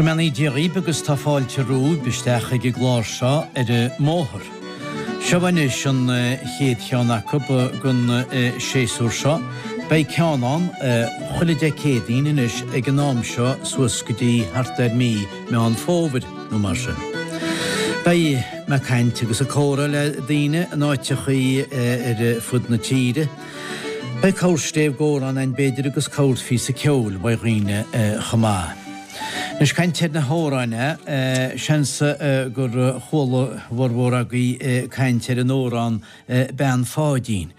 Go mbeannaí Dia dhaoib agus tá fáilte romhaibh isteach ag an gclár seo ar an mbóthar. Seo anois an chéad cheann acu don séasúr seo. Beidh ceann ann chuile Dé Céadaoin anois ag an am seo suas go dtí thart ar mí Meán Fómhair nó mar sin. Beidh mé ag caint agus ag comhrá le daoine in áiteachaí ar fud na tíre. Beidh corr stéibh gcomhrá ann b'fhéidir agus corr phíosa ceoil uaidh dhaoine chomh maith. Anois caint ar na hamhráin, seans gur chuala a bhformhór agaibh caint ar an amhrán Bean Pháidín.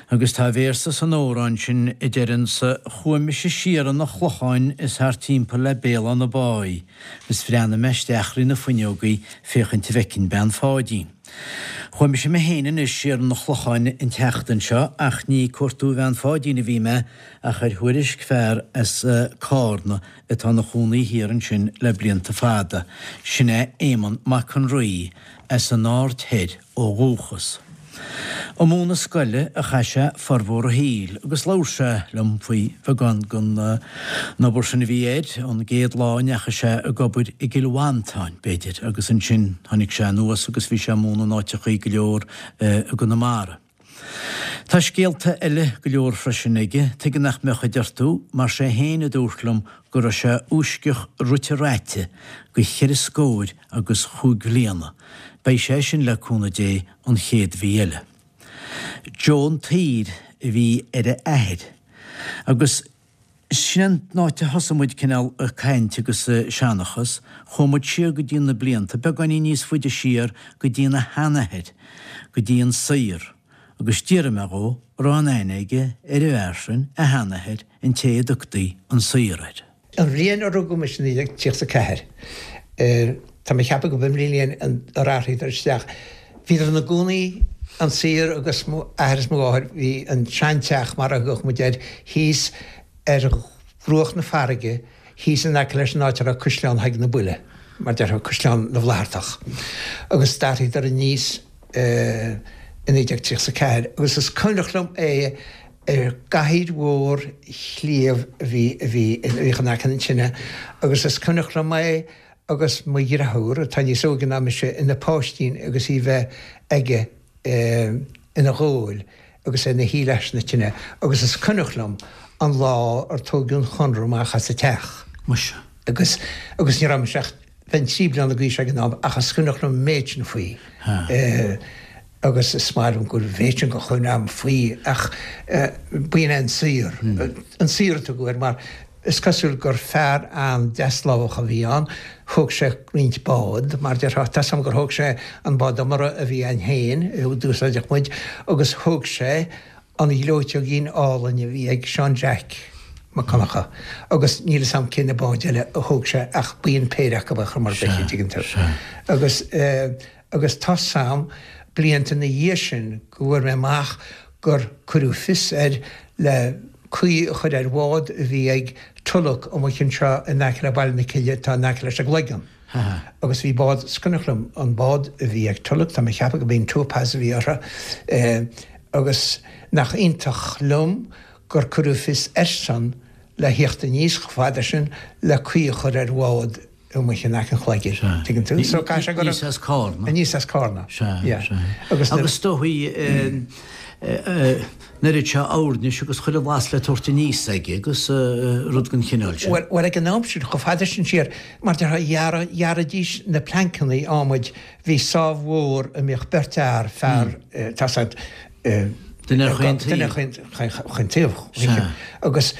Agus tá véarsa san amhrán sin a deireanns Chuaigh mise siar 'un a' Chlocháin is thart timpeall le Béal Átha na Báighe is bhreathnaigh mé isteach thrí na fuinneogaí féachaint a bhfeicfinn Bean Pháidín. Chuaigh mise mé féin anois siar 'un a' Chlocháin an tseachtain seo ach ní ag cuartú Bhean Pháidín a bhí mé ach ar thuairisc fear as Cárna atá ina chónaí thiar ansin le blianta fada, sin é Éamonn Mac an Rí as an Aird Thoir ó dhúchas. Ag múineadh scoile a chaith sé formhór a shaoil agus labhair sé liom faoi bheagán den obair sin a bhí air, ón gcéad lá a ndeachaigh sé ag obair i gCill Mhantáin, b'fhéidir, agus ansin tháinig sé anuas agus bhí sé ag múineadh in áiteachaí go leor i gConamara. Tá scéalta eile go leor freisin aige, tuige nach mbeadh a deir tú, mar sé féin a dúirt liom go raibh sé uaisceach rite raite go cheithre scóir agus chúig bhliana. Beidh sé sin, le cúnamh Dé, an chéad mhí eile. Joe an tSaoir a bhí ar a athair. Agus sin an áit a thosaigh muid cineál ag caint agus ag seanchas. Chuaigh muid siar go dtí na blianta, beagáinín níos faide siar, go dtí ina sheanathair, go dtí an Saor. Agus d'fhiafraigh mé dhó, raibh aon aithne aige ar an bhfear sin, a sheanathair, an té a dtugtaí an Saor air. An bhliain a rugadh mise, 1934, tá mé ag ceapadh go b'in an bhliain ar athraíodar isteach. Bhíodar ina gcónaí, an Saor agus mo athair is mo mháthair, bhí an seanteach, mar a thugadh muid air, thíos ar bhruach na farraige, thíos in aice leis an áit a raibh Caisleán Thaidhg na Buile, mar déarfá, Caisleán na bhFlaitheartach. Agus d'athraíodar aníos i 1934 agus is cuimhneach liom é, Ar gcathaoir mhór shliabh a bhí a bhí a bhíodh in aice na tine agus is cuimhneach liom é agus mo dhriotháir, atá níos óige ná mise, ina pháistín agus í bheith aige ina ghabhail agus é ina shuí leis na tine agus is cuimhneach liom an lá ar tóigeadh an Chonradh amach as an teach. Muise. Agus agus ní raibh mise ach bheinn 3 bliana d'aois ag an am ach is cuimhneach liom an méid sin faoi. Agus is maith liom go bhfuil an mhéid sin de chuimhne agam faoi ach b'in é an Saor. An Saor a tugadh air mar is cosúil gur fear an-deaslámhach a bhí ann. Thóg sé roinnt bád, mar déarfá, tá 's agam gur thóg sé an bád iomartha a bhí againn féin, a d'úsáideadh muid, agus thóg sé an ghleoiteoigín álainn a bhí ag Seán Jack Mac Conchadha agus níl 'fhios a'm cé na báid eile a thóg sé ach b'in péire acu ar chuma ar bith, an dtuigeann tú. Agus agus tá 's a'm blianta ina dhiaidh sin go bhfuair mé amach gur cuireadh fios air le caoi a chur ar bhád a bhí ag Tulach amuigh anseo in aice le Baile na Cille atá in aice leis an gCloigeann. Agus bhí bád, is cuimhneach liom an bád a bhí ag Tulach, tá mé ag ceapadh go b'in Topaz a bhí orthu, agus nach iontach liom gur cuireadh fios airsean le thíocht aníos chomh fada sin le caoi a chur ar bhád amuigh in aice an Chloiginn, tuigeann tú? So caithfidh sé go raibh. Aníos as Cárna. Aníos as Cárna. Sea, sea. Agus is dóigh an oiread seo oirnis agus chuile bhlas le tabhairt aníos aige agus rud den chineál sin. Bhuel, ag an am sin, chomh fada sin siar, mar déarfá, ghearraidís na pleancannaí adhmaid, bhí sábh mhór a mbíodh beirt fhear, fear, tá 's a'd, Duine ar chaon taobh. Duine ar chaon taobh. Agus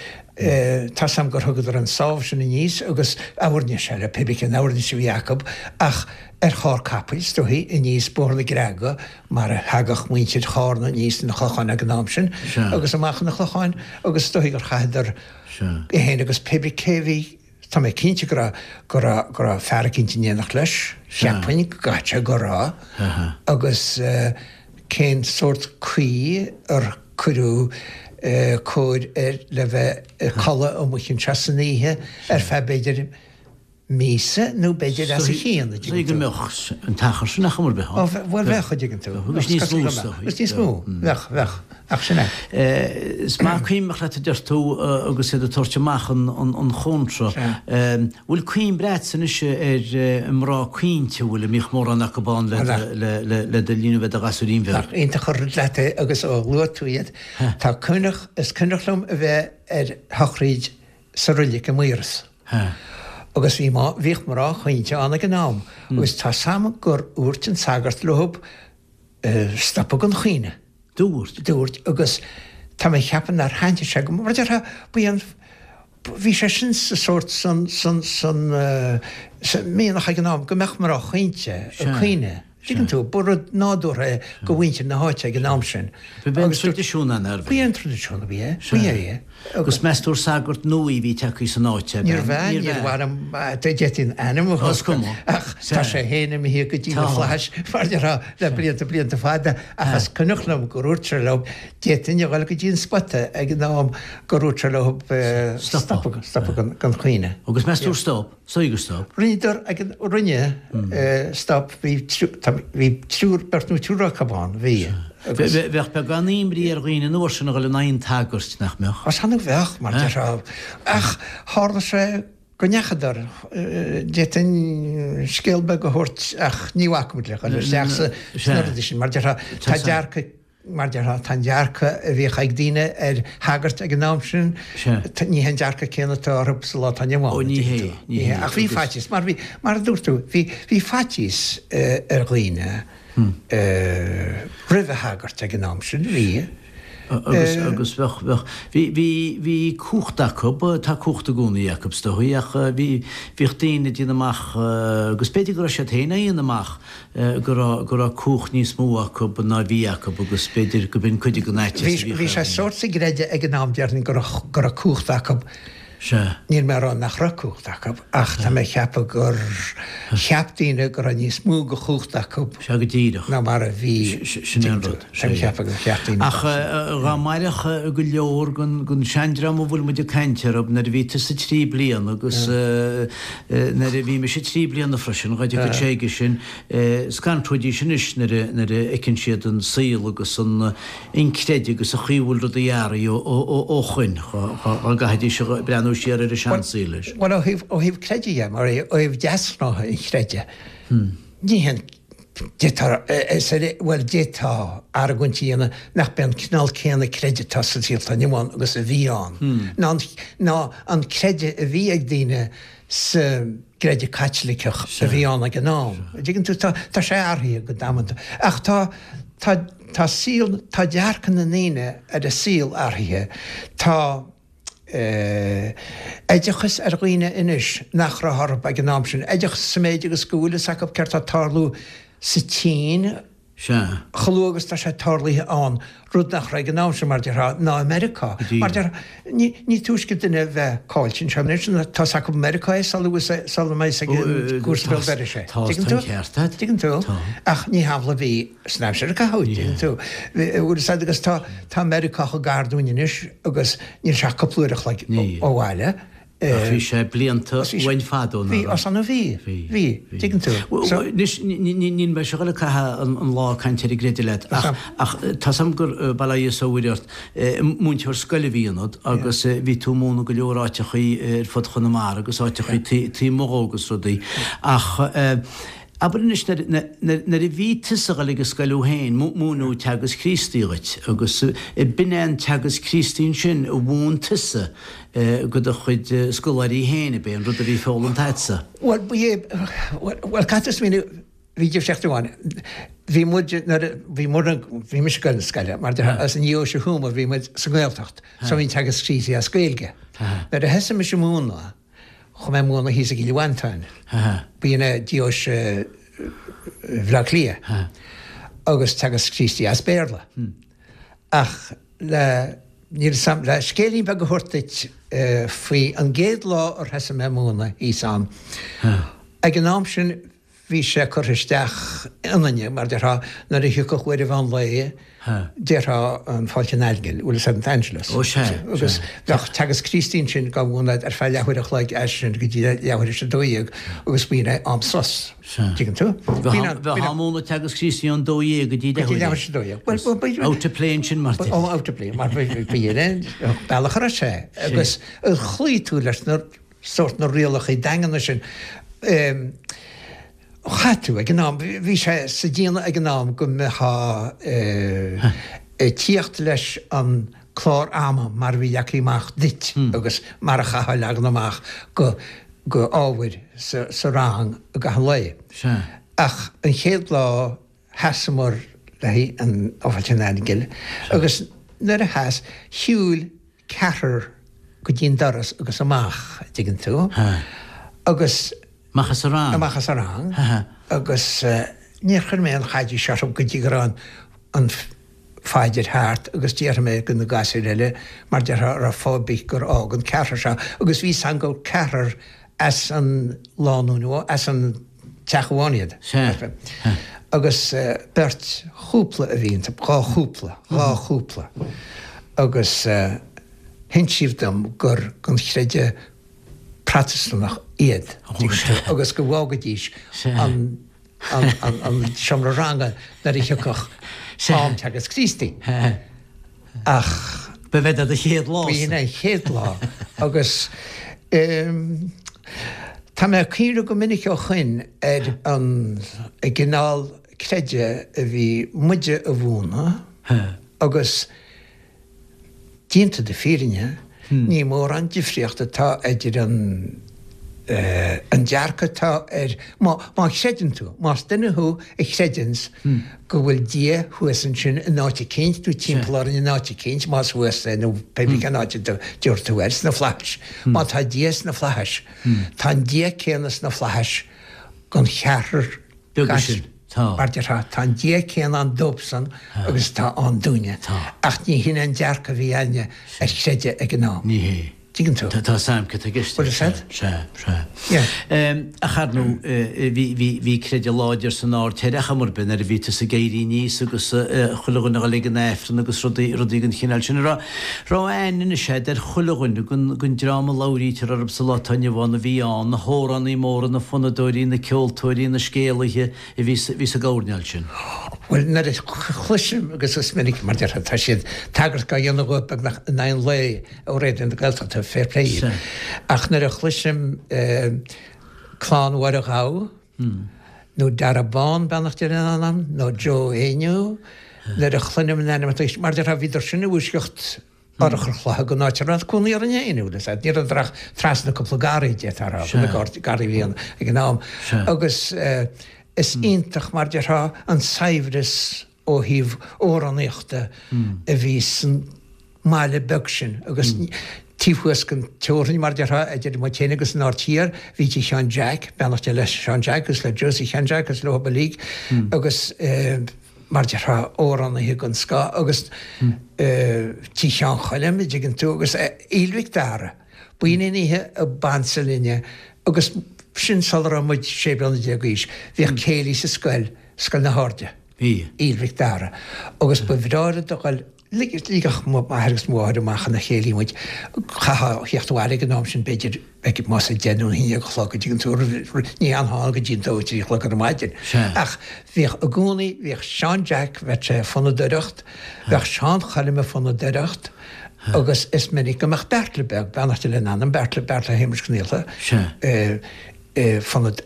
tá 's a'm gur thugadar an sábh sin aníos agus oirnis eile, pé bith cén oirnis a bhí acu, ach ar charr capaill, is dóichí, aníos Bóthar na Creagha, mar a thagadh muintir Chárna aníos chun an Chlocháin ag an am sin, agus amach chun an Chlocháin, agus is dóichí gur chaitheadar é féin agus pé bith cé bhí, tá mé cinnte go raibh, go raibh, go raibh fear eicínt in éineacht leis, cheapfainn go gcaithfidh sé go raibh, agus cén sórt caoi ar cuireadh cóir air le bheith ag codladh amuigh anseo san oíche ar feadh b'fhéidir míosa nó b'fhéidir os a chionn, a dtuigeann tú. go mbeadh an t-achar sin ar chuma ar bith ann. Ó, bhuel bheadh, a dtuigeann tú. Agus níos mó is dóigh. Agus níos mó, bheadh, bheadh. Ach sin é. Is maith cuimhneach leat a deir tú agus iad ag tabhairt amach an chónra. Bhfuil cuimhne agatsa anois ar mná caointe, an bhfuil, a mbíodh mórán acu ann le do linn a bheith i do ghasúirín bheag? Nach iontach an rud leat é agus ó luaigh tú iad, tá cuimhneach, is cuimhneach liom a bheith ar shochraíd sa roilig i Maoras. Agus bhí, bhíodh mná caointe ann ag an am agus tá 's a'm gur dhúirt an sagart leothub stopadh den chaoineadh. Dúirt. Dúirt agus tá mé a cheapadh nár thaitnigh sé go mar déarfá ba é an bhí sé sin sa sórt san san san sa mianach ag an am go mbeadh mná caointe ag caoineadh. Tuigeann tú, ba rud nádúrtha é go mhuintir na háite ag an am sin. Ba é an traidisiún ann, arbh ea? Ba é an traidisiún a bhí é, ba é é. Agus meas tú ar sagart nua a bhí tagtha san áit, ab ea? Níorbh ea, níor mhaith liom, d'fhéadfainn ainm a thabhairt, ach tá sé féin imithe go dtí na flaithis, mar a déarfá, le blianta, blianta fada, ach is cuimhneach liom gur dhúirt sé leo, d'fhéadfainn a dhul go dtí an spota ag an am gur dhúirt sé leo stopadh, stopadh den chaoineadh. Agus meas tú ar stop? Sea gur stop. Rinneadar ag an, rinne, stop, bhí, bhí triúr, beirt nó triúr acu ann, bhí. Agus. Bheadh beagán imní ar dhaoine an uair sin a dhul in aghaidh an tsagairt, nach mbeadh? Is annamh bheadh, mar déarfá. Ach tharla sé go ndeachadar, d'fhéadfainn scéal beag a thabhairt ach ní bhacfaimid le dhul isteach sna rudaí sin, mar déarfá, tá dearcadh Mar déarfá, tá an dearcadh a bhíodh ag daoine ar shagairt ag an am sin, ní hé an dearcadh céanna atá orthu sa lá atá inniu ann. Ó, ní hé, ní hé. Ach bhí faitíos, mar bhí, mar a dúirt tú, bhí, bhí faitíos ar dhaoine roimh shagairt ag an am sin, bhí. Agus, agus bheadh, bheadh, bhí, bhí, bhí cumhacht acu, tá cumhacht i gcónaí acu is dóigh, ach bhí, bhíodh daoine ag déanamh amach, agus b'fhéidir go raibh siad féin á dhéanamh amach, go raibh, go raibh cumhacht níos mó acu ná bhí acu agus b'fhéidir go b'in cuid den fhaitíos a bhíodh Bhí sé sórt sa gcreideamh ag an am déarfainn go raibh, go raibh cumhacht acu. Sea. Níl mé a rá nach raibh cumhacht acu ach tá mé a cheapadh gur cheap daoine go raibh níos mó de chumhacht acu Sea, go díreach. ná mar a bhí. Sin é an rud. Tá mé a cheapadh gur cheap daoine Ach dá mairfeadh go leor den, den seandream a bhfuil muid ag caint orthu nuair a bhí tusa trí bliana agus, Nuair a bhí mise 3 bliana freisin, dá dtiocfadh sé aige sin, scanróidís anois nuair a nuair a fheiceann siad an saol agus an an creideamh agus an chaoi a bhfuil rudaí athraithe ó shoin, dá gcaithfidís a breathnú siar ar an seansaol leis. Bhuel, ó thaobh ó thaobh creidimh dhe, mar ó thaobh deasghnátha an chreidimh, ní haon D'fhéadfá, bhuel, d'fhéadfá argóint a dhéanamh nach b'é an cineál céanna creidimh atá sa saol atá inniu ann agus a bhí ann, ná an, ná an creideamh a bhí ag daoine sa gcreideamh Caitliceach a bhí ann ag an am. An dtuigeann tú? Tá, tá sé athraithe go damanta. Ach tá, tá, tá saol, tá dearcadh na ndaoine ar an saol athraithe. Tá. oideachas ar dhaoine anois nach raibh orthu ag an am sin, oideachas sa méid agus go bhfuil fhios acu céard tá ag tarlú sa tSín Sea. chomh luath agus tá sé tarlaithe ann, rud nach raibh ag an am sin, mar déarfá, ná i Meiriceá. Mar déarfá, ní, ní túisce duine a bheith caillte anseo anois ná tá fhios acu i Meiriceá é sula bhfuil, sula mbeidh fhios ag an gcúrsa béal dorais é. Tá, tá an ceart agat. Tuigeann tú? Tá. Ach ní hamhlaidh a bhí san aimsir a caitheadh, tuigeann tú? Bhfuil fhios agat agus tá, tá Meiriceá chomh gar dúinn anois agus níl sé ach cúpla uair a chloig ó bhaile. Ach bhí sé blianta uainn fadó, nach raibh? Bhí, ansan bhí, bhí, tuigeann tú. Anois, níl mé ag dul a chaitheamh an lá ag caint ar an gcreideamh leat, ach tá 's a'm gur, bail ó Dhia is ó Mhuire ort, múinteoir scoile a bhí ionat agus bhí tú ag múineadh go leor áiteachaí ar fud Chonamara agus áiteachaí taobh amuigh dhó agus rudaí. Ach Abair anois, nuair a bhí tusa ag dul ag an scoil thú féin, múineadh Teagasc Críostaí dhuit, agus b'in é an Teagasc Críostaí ansin a mhúin tusa go do chuid scoláirí féin, ab é an rud a bhí foghlamtha agatsa? Bhuel, ba é, bhuel, caithfidh tú smaoineamh, bhí difríocht amháin. Bhí muid, nuair a bhí muid, bhí mise ag dul na scoile, mar déarfá, as an nDeoise Thuama, bhí muid sa nGaeltacht, so bhí an Teagasc Críostaí as Gaeilge. Nuair a thosaigh mise ag múineadh, Chuaigh mé ag múineadh thíos i gCill Mhantáin. B'in é deoise Bhaile Átha Cliath agus Teagasc Críostaí as Béarla. Ach le, níl 'fhios a'm, le scéilín beag a thabhairt duit faoi an gcéad lá ar thosaigh mé ag múineadh thíos ann. Ag an am sin. bhí sé curtha isteach ionainne, mar déarfá, nuair a thiocfadh uair an mheán lae, déarfá an Fáilte an Aingil, bhfuil fhios a'd, an Angelus. Ó sea, sea. Agus bheadh Teagasc Críostaí ansin dhá mhúineadh ar feadh leathuair a chloig as sin go dtí leathuair théis a 12 agus b'in é am sos. Sea. Tuigeann tú? Bheadh am múineadh Teagasc Críostaí ón 12 go dtí leathuair théis a 12. Bhuel, bhuel, Out to play ansin mar Oh, out to play, mar b'in é an bealach a raibh sé. Agus chloígh tú leis na sórt na rialacha daingeana sin. Chaith tú ag an am, bhí sé sa déanamh ag an am go mbeifeá ag tíocht leis an clár ama mar a bhí leagtha amach duit agus mar a chaithfeá leagan amach go go ábhair sa rang i gcaitheamh an lae. Ach an chéad lá sheasamar le haghaidh an Fháilte an Aingil agus nuair a sheas, shiúil ceathrar go dtí an doras agus amach, a' dtuigeann tú, agus. Amach as an rang. Amach as an rang agus níor chuir mé aon chaidís orthu go dtí go raibh an phaidir thart agus d'fhiafraigh mé de na gasúir eile mar déarfá an raibh fáth ar bith gur fhág an ceathrar seo agus bhí 's a'm gur ceathrar as an lánúin, as an teach amháin iad. Sea. Agus beirt chúpla a bhí iontu, dhá chúpla, dhá chúpla. Agus hinsíodh dom gur den chreideamh Protastúnach iad, agus go bhfágaidís an an seomra ranga nuair a thiocfadh am Teagasc Críostaí. Ach. Ba b'in é do chéad lá. B'in é an chéad lá agus tá mé ag cuimhneamh go minic ó shoin ar an gcineál creideamh a bhí muide a mhúineadh agus Déanta na fírinne, ní mórán difríocht atá idir an an dearcadh atá ar, má má chreideann tú, más duine thú a chreideanns go bhfuil Dia thuas ansin in áit eicínt nó timpeall orainn in áit eicínt, más thuas é nó pé bith cén áit a dtabharfaidh tú air, sna flaithis. Má tá Dia sna flaithis, tá an Dia céanna sna flaithis don cheathrar Beaga sin. Tá. Mar déarfá, tá an Dia céanna ann dóibhsan agus atá ann dúinne. Tá. Ach ní hin an dearcadh a bhí againne ar chreideamh ag an am. Ní hé. Tuigeann tú? Tá a fhios a'm cad tá i gceist. Bhfuil a fhios a'd? Sea, sea. Yeah. Ach ar ndóigh, bhí, bhí, bhí creideamh láidir san Aird Thoir ar chuma ar bith nuair a bhí tusa ag éirí aníos agus chuile dhuine a dhul ag an Aifreann agus rudaí, rudaí den chineál sin. An raibh, raibh aithne anois a'd ar chuile dhuine den, den dream a labhraítear orthu sa lá atá inniu ann a bhí ann, na hamhránaí móra, na fonnadóirí, na ceoltóirí, na scéalaithe a bhí sa, bhí sa gcoirnéal sin. Bhuel, nuair a chloisim, agus is minic, mar déarfá, tá siad tagairt á dhéanamh dhóibh beagnach in aghaidh an lae ó Raidió na Gaeltachta, fair play dhíobh. Ach nuair a chloisim Clann Mháire Ghabha, nó Dara Bán, beannacht Dé lena anam, nó Joe Éinniú, nuair a chluinim a n-ainmneacha, mar déarfá, bhíodar sin i bhfoisceacht urchar chloiche den áit a raibh cónaí orainn féin, bhfuil fhios a'd, ní rabhadar ach trasna cúpla garraí, d'fhéadfá a rá, na garraí a bhí ann ag an am. Agus is iontach, mar déarfá, an saibhreas ó thaobh amhránaíochta a bhí san mbaile beag sin agus taobh thuas den teorainn, mar déarfá, idir muid féin agus an Aird Thiar, bhí tigh Sheáin Jack, beannacht Dé le Seán Jack agus le Josie Sheáin Jack agus leo uilig agus mar déarfá, amhránaithe den scoth agus tigh Sheáin Choilm, a dtuigeann tú, agus Aoill Mhic Dara. B'in an oíche a b'ansa linne agus sin sula raibh muid 16 bliana d'aois, bhíodh céilí sa scoil, Scoil na hAirde. Bhí. Aoill Mhic Dara. Agus ba bhreá rud a dhul, ligeadh m'athair agus mo mháthair amach ina chéilí muid, chaithfeá a theacht abhaile ag an am sin b'fhéidir ag más a deich nó a haon déag a chlog a dtuigeann tú, ní fhanfá ann go dtí an dó trí a chlog ar maidin. Ach bhíodh i gcónaí, bhíodh Seán Jack, bheadh sé ag fonnadóireacht, bheadh Seán Choilm ag fonnadóireacht agus is minic go mbeadh Beartla beag, beannacht Dé lena anam, Beartla, Beartla Shéamuis Cnialta, fonnad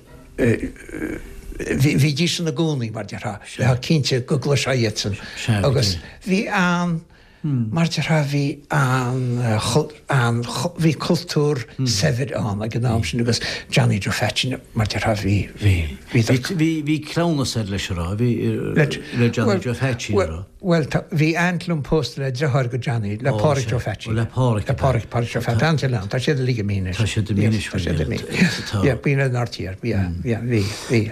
bhídís ina gcónaí, mar déarfá, bheifeá cinnte go gcloisfeá iadsan agus bhí an, mar déarfá, bhí an, an, bhí cultúr saibhir ann ag an am sin agus Johnny Joe Pheaitsín, mar déarfá, bhí, bhí, bhí, bhí cleamhnas air leis a rá, bhí, le Johnny Joe Pheaitsín a rá. Bhuel, tá, bhí aint liom pósta le driotháir go Johnny, le Páraic Joe Pheaitsín. Ó, le Páraic. Le Páraic, Páraic Joe Pheaitsín. Tá an tá siad uilig imithe anois. Tá siad imithe anois. Tá siad imithe. Tá. Yeah, b'in an Aird Thiar, yeah, yeah, bhí, bhí.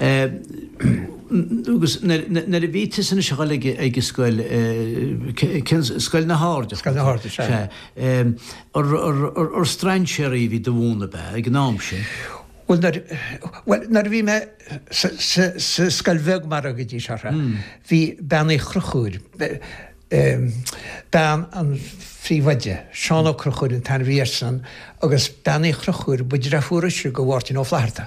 Agus nuair a bhí tusa anois ag dul ag an scoil, cén, Scoil na hAirde? Scoil na hAirde, sea. Sea. Ar strainséirí a bhí do mhúineadh, ab ea, ag an am sin? Bhuel nuair, bhuel nuair a bhí mé sa, sa, sa scoil bheag mar a thugaidís orthu, bhí Bean Uí Chonchúir, bean an phríomhoide, Seán Ó Conchúir an t-ainm a bhí airsean, agus Bean Uí Chonchúir, ba deirfiúr ise go Mháirtín Ó Flaithearta.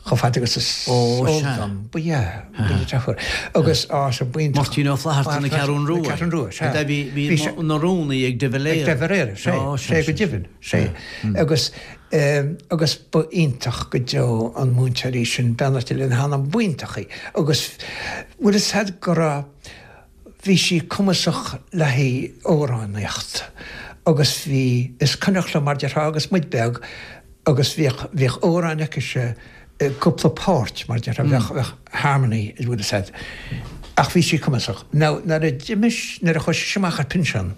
Chomh fada agus is eol dom, ba ea, ba dheirfiúr. Agus, á, sea, b'iontach. Máirtín Ó Flaithearta na Ceathrún Rua. Na Ceathrún Rua, sea. Bhí, bhí ina rúnaí ag de Valera. Ag de Valera, sea, sea, go deimhin, sea. Agus, agus ba iontach go deo an múinteoir í sin, beannacht Dé lena hanam, b'iontach í. Agus, bhfuil fhios a'd go raibh, bhí sí cumasach le haghaidh amhránaíocht agus bhí, is cuimhneach liom mar déarfá agus muid beag, agus bhíodh, bhíodh amhráin aicise i gcúpla páirt, mar déarfá, bheadh, bheadh harmony, an bhfuil fhios a'd. Ach bhí sí cumasach. Now, nuair a d'imigh, nuair a chuaigh sise amach ar pinsean,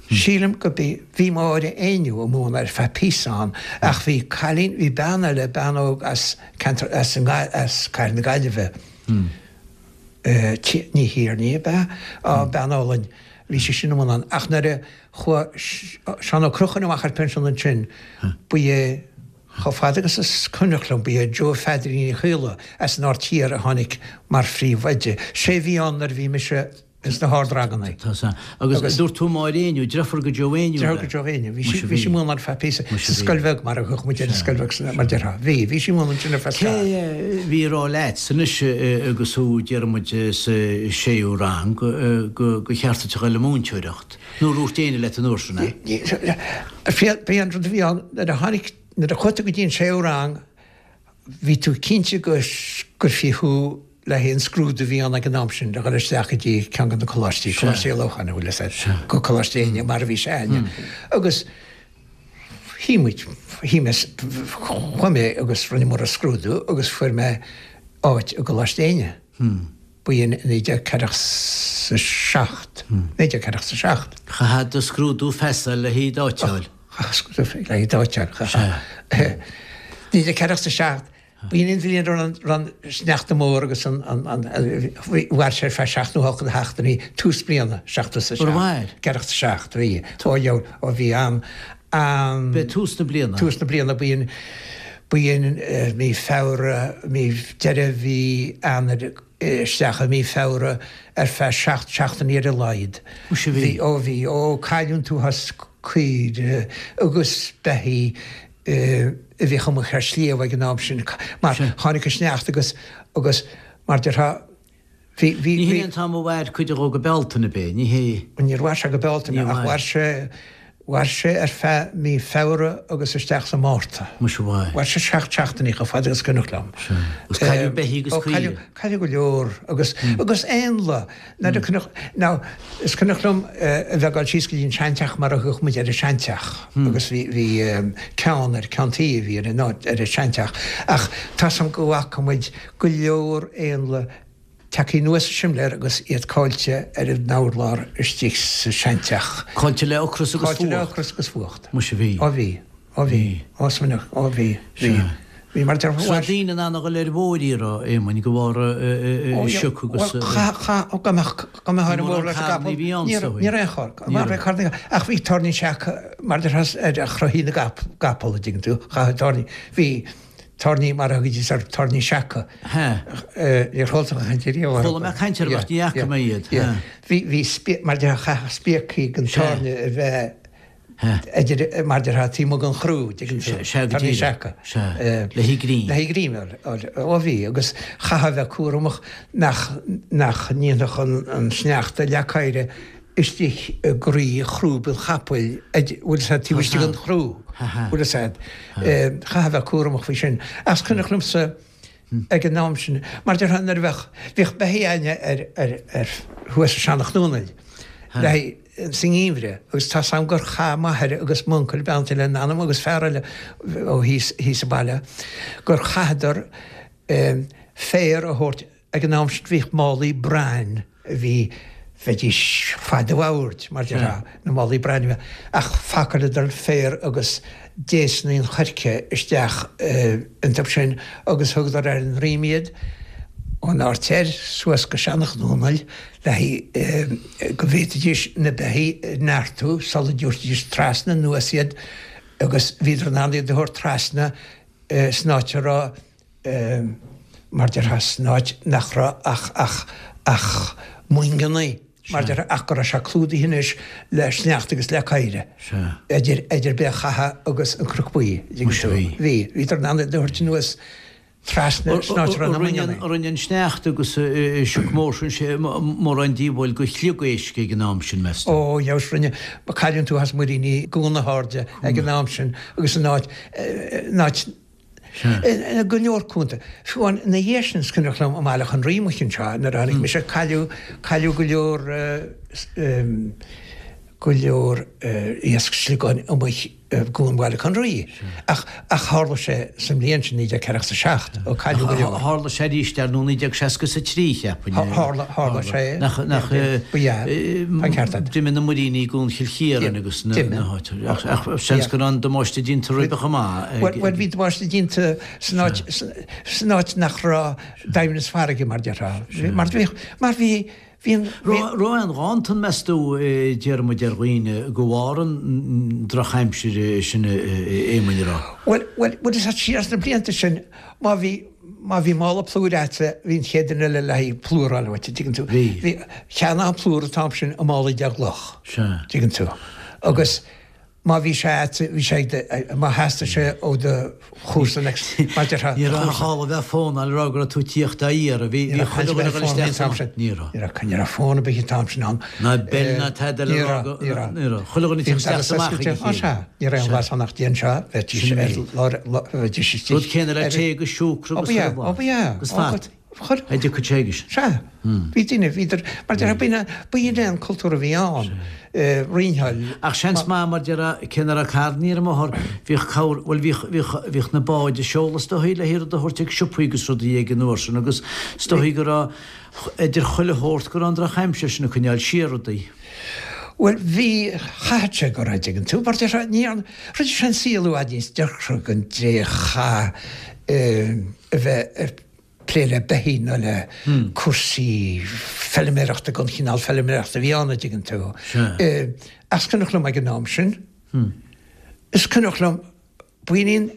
sílim go b'í, bhí Máire Éinniú ag múineadh ar feadh píosa ann, ach bhí cailín, bhí bean eile, bean óg as ceantar, as an, as Cathair na Gaillimhe, Ní Thiarnaigh ab ea? Á, bean álainn, bhí sí sin ag múineadh ann. Ach nuair a chuaigh Seán Ó Conchúir amach ar pinsean ansin, ba é, chomh fada agus is cuimhneach liom, ba é Joe Pheadairín Uí Chaola as an Aird Thiar a tháinig mar phríomhoide. Sé a bhí ann nuair a bhí mise ins na hardranganna. Tá sea. Agus dúirt tú Máire Éinniú, deirfiúr go Joe Éinniú ab ea? Deirfiúr go Joe Éinniú. Bhí sí, bhí sí ag múineadh ar feadh píosa sa scoil bheag mar a thugadh muid ar an scoil bheag san, mar déarfá. Bhí, bhí sí ag múineadh ansin ar feadh Cé bhí ag rá leat anois agus thú, déarfaidh muid, sa séú rang, go, gur cheart duit a dhul le múinteoireacht? Nó ar dhúirt éinne leat an uair sin é? B'é an rud a bhí ann, nuair a tháinig, nuair a chuaigh tú go dtí an séú rang, bhí tú cinnte go gcuirfí thú le haghaidh an scrúdú a bhí ann ag an am sin le dhul isteach go dtí ceann de na coláistí, Coláiste Uí Lócháin, an bhfuil fhios a'd, go Coláiste Éinne, mar a bhí sé a'inne. Agus shuigh muid, shuigh mé, chuaigh mé agus rinneamar an scrúdú agus fuair mé áit i gColáiste Éinne. B'in i 1947. 1947. Chaithfeá do scrúdú feasa le haghaidh d'áit a fháil. Chaithfeá scrúdú le haghaidh d'áit a fháil. 1947, b'in an bhliain a raibh an sneachta mór agus an, mhair sé ar feadh seacht nó hocht de sheachtainí, tús bliana, 77. Gur mhair? 47, bhí. Ó, ó bhí an, an. B'é tús na bliana. Tús na bliana, b'in, b'in mí Feabhra, mí, deireadh mhí Eanáir isteach i mí Feabhra ar feadh seacht seachtainí ar a laghad. Muise bhí. Bhí, ó bhí, ó cailleadh an t-uafás caoire agus beithígh a bhíodh amuigh ar sliabh ag an am sin mar tháinig an sneachta agus, agus mar déarfá, Bhí, bhí, Ní hé an t-am a mhair cuid dhó go Bealtaine, ab é? Ní hé. Níor mhair sé go Bealtaine ach mhair sé, mhair sé ar feadh mí Feabhra agus isteach sa Márta. Muise mhair. Mhair sé seacht seachtainí chomh fada agus cuimhneach liom. Sea. Agus cailleadh beithígh agus caoire. Cailleadh, cailleadh go leor agus, agus éanlaith. Nuair a cuimhneach, now, is cuimhneach liom a bheith ag dul síos go dtí an seanteach mar a thugadh muid ar an seanteach agus bhí, bhí ceann ar, ceann tuí a bhí ar an áit, ar an seanteach ach tá 's a'm go bhfaca muid go leor éanlaith tagtha anuas an simléar agus iad caillte ar an urlár istigh sa seanteach. Caillte le ocras agus fuacht. Caillte le ocras agus fuacht. Muise bhí. Ó bhí. Ó bhí. Ó smaoineach. Ó bhí. Bhí. Bhí mar deir. Is raibh daoine in ann a dhul ar bhóithrí a raibh Éamoinn de bharr sioc agus. Bhuel chaith, chaith, ó go mbeadh, go mbeadh ar an mbóthar leis an gcapall. Ní raibh, ní raibh aon charr. Ní raibh carr. Ach bhí tairní seaca mar deir ar chroithí na gcapall a dtuigeann tú. Chaith tairní. Bhí. Tairní mar a thugaidís orthu, tairní seaca. Níor chuala tú caint ariamh orthu. Chuala mé caint orthu ach ní fhaca mé iad. Bhí, bhí spí, mar déarfá chaithfeadh spíocaí den tairne a bheith idir, mar déarfá taobh amuigh den chrú, dtuigeann tú. Sea, go Tairní seaca. Sea, le haghaidh greim. Le haghaidh greim, ó bhí, agus chaithfeá a bheith cúramach nach, nach ndéanfadh an, an sneachta leac oighre istigh i gcroí chrúb an chapaill, bhfuil 'fhios a'd, taobh istigh den chrú, bhfuil 'fhios a'd. Chaithfeá a bheith cúramach faoi sin. Ach is cuimhneach liomsa ag an am sin, mar déarfá nuair a bheadh, bhíodh beithígh a'inne ar, ar, ar, thuas i Seanach Dúnaill, le haghaidh, sa ngeimhreadh, agus tá 's a'm gur chaith m'athair agus m'uncail, beannacht Dé lena anam, agus fear eile ó thíos, thíos sa baile, gur chaitheadar féar a thabhairt, Ag an am sin bhíodh málaí brain a bhí, bheidís fad an bhoird, mar déarfá, na málaí brain a bhí, ach phacáileadar féar agus déasanna an choirce isteach iontu sin agus thugadar ar a ndroim iad ón Aird Thoir suas go Seanach Dúnaill le haghaidh go bhféadfaidís na beithígh a neartú sula dtabharfaidís trasna anuas iad agus bhíodar in ann iad a thabhairt trasna. San áit a raibh, mar déarfá, san áit nach raibh ach, ach, ach moingeannaí, mar déarfá, ach go raibh sé clúdaithe anois le sneachta agus le caora, idir, idir Béal Chatha agus an Cnoc Buí, an dtuigeann tú. Bhí. Bhíodar in ann iad a thabhairt anuas trasna san áit a raibh na moingeannaí. Rinne an sneachta agus an sioc mór sin mórán díobháil do shliogáisc ag an am sin, meas tú? Ó, dheabhas, rinne. Cailleadh an t-uafás muiríní i gCuan na hAirde ag an am sin agus in áit, in áit, i go leor cuanta. Fiú amháin ina dhiaidh sin is cuimhneach liom i mBaile Átha an Rí amuigh anseo nuair a tháinig mise, cailleadh, cailleadh go leor, go leor iasc sliogáin amuigh i gCuan Bhaile Átha an Rí. Ach tharla sé sa mbliain sin, 1947, ó cailleadh go leor. Tharla sé arís ar ndóigh 1963, cheapfainn. Tharla, tharla sé. Nach, nach, Ba ea, tá an ceart agat. D'imigh na muiríní i gCuan Chill Chiaráin agus na háiteanna. Ach seans go raibh an damáiste déanta roimhe chomh maith. Bhuel, bhí damáiste déanta san áit, san áit nach raibh doimhneas farraige, mar déarfá. Mar bhí, mar bhí, Bhí an. Raibh aon ghanntan, meas tú, a Dhiarmuid, ar dhaoine de bharr an drochaimsir sin, a Éamoinn, an raibh? Bhuel, bhuel, bhuel, is siar sna blianta sin, má bhí, má bhí mála plúir a'dsa, bhí an chéad duine eile le haghaidh plúr a fháil uait, an dtuigeann tú? Bhí. Bhí, cheannófá an plúr an t-am sin i málaí de gcloch. Sea. Dtuigeann tú? Agus. Má bhí sé a'd, bhí sé ag do, má theastaigh sé ó do chomharsa next, mar déarfá, Ní raibh aon chall a bheith fónáil a rá go raibh tú ag tíocht á iarraidh, bhí, bhí chuile dhuine ag dul isteach san, ní raibh. Ní raibh, ní raibh fón ar bith an t-am sin ann. Ná beil ná tada le rá go, ní raibh, ní raibh. Chuile dhuine ag tíocht isteach is amach ag a chéile. Sea, ní raibh aon ghlas ann ach déan seo, bheidís ar lár, bheidís istigh. Rud céanna le tae agus siúcra agus chuile bhlas. Ó ba ea, ó ba ea. Agus fat. Chuir. A dtiocfadh sé agus. Sea. Bhí daoine, bhíodar, mar déarfá, b'in é, b'in é an cultúr a bhí ann, roinneáil. Ach seans maith, mar déarfá, cé nach raibh carrannaí ar an mbóthar, bhíodh cabhair, bhuel bhíodh, bhíodh, bhíodh na báid ag seoladh is dóichí le rud a thabhairt ag siopaí agus rudaí ag an uair sin agus is dóichí go raibh, idir chuile shórt, go raibh an drochaimsir sin ag coinneáil siar rudaí. Bhuel, bhí, chaithfeadh sé go raibh, dtuigeann tú, mar déarfá, ní, rinne sé an saol i bhfad níos deacra don dté a chaith a bheith ag plé le beithígh nó le cúrsaí feilméarachta den chineál feilméarachta a bhí ann, a dtuigeann tú. Ach is cuimhneach liom ag an am sin, is cuimhneach liom, b'in í an,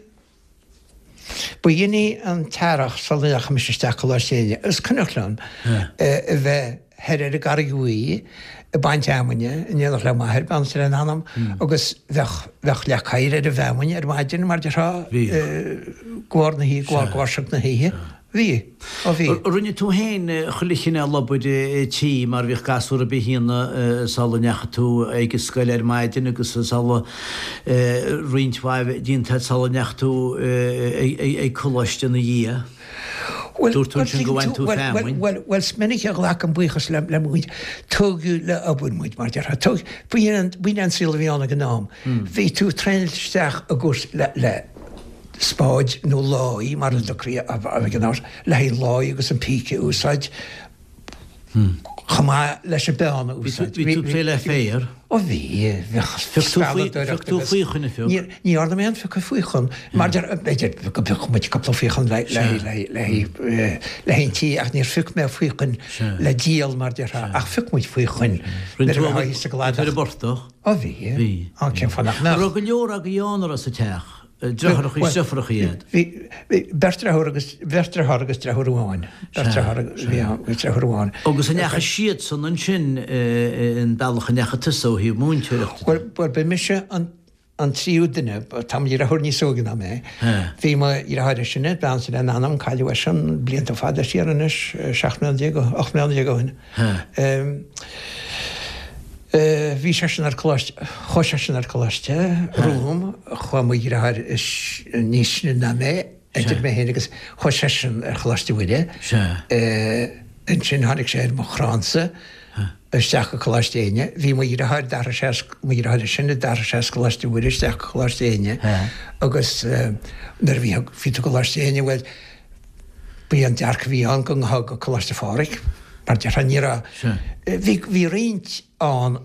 b'in í an t-earrach sula ndeachaigh mise isteach Coláiste Éinne, is cuimhneach liom a bheith thoir ar an gCarraig Bhuí ag baint fheamainne in éineacht le m'athair, beannacht Dé lena anam, agus bheadh, bheadh leac oighir ar an bhfeamainn ar maidin mar déarfá, de bharr na hoíche, de bharr, de bharr sioc na hoíche. Bhí. Ó bhí. Rinne tú féin chuile chineál obair tí mar bhíodh gasúr ar bith a dhéanamh sula ndeachaigh tú ag an scoil ar maidin agus sula roinnt mhaith déanta agat sula ndeachaigh tú ag coláiste ina dhiaidh. Dúirt tú ansin go bhain tú feamainn. Bhuel, bhuel, is minic a ghlacaim buíochas le mo mhuintir. Tógadh le obair muid, mar déarfá. Tógadh, b'in é an saol a bhí ann ag an am. Bhí tú traenáilte isteach i gcúrsaí le, le spáid nó láí, mar a dtugtaí ag an am, le haghaidh láí agus an píce a úsáid. Chomh maith leis an bpeann a úsáid. Bhí tú ag plé le féar? Ó bhí, bheadh spealadóireacht Phioc tú faochain a phioc? Ní dhearna mé aon phiocadh faochain. Mar b'fhéidir go bpiocfadh muid cúpla faochain le haghaidh an tí ach níor phioc mé faochain le díol mar déarfá ach phioc muid faochain nuair a bheifeá thíos sa gcladach. Ar an bportach? Ó bhí. Bhí. Ó cén fáth nach mbeadh? An raibh go leor agaibh ann a raibh sa teach? Deartháireacha is deirfiúracha iad. Bhí beirt deartháir agus beirt deartháir agus deirfiúr amháin. Beirt deartháir a bhí ann agus deirfiúr amháin. Agus an ndeachaigh siadsan ansin an bealach a ndeachaigh tusa ó thaobh múinteoireachta de? Bhuel, bhuel, ba mise an an tríú duine, tá mo dheartháir níos óige ná mé. Bhí mo dheartháir is sine, beannacht Dé lena anam, cailleadh eisean blianta fada siar anois, 17 mbliana, 18 mbliana ó shin. Bhí seisean ar coláiste, chuaigh seisean ar coláiste romham, chuaigh mo dheartháir is níos sine ná mé, idir mé féin agus, chuaigh seisean ar Choláiste Mhuire. Ansin tháinig sé ar mo chrannsa isteach go Coláiste Éinne. Bhí mo dheartháir, d'athraigh sé as, mo dheartháir is sine, d'athraigh sé as Coláiste Mhuire isteach go Coláiste Éinne agus nuair a bhí, bhí tú i gColáiste Éinne, bhuel, B'é an dearcadh a bhí ann go ngabhfá go Coláiste Phádraig, mar déarfá, ní raibh, bhí, bhí roinnt ann,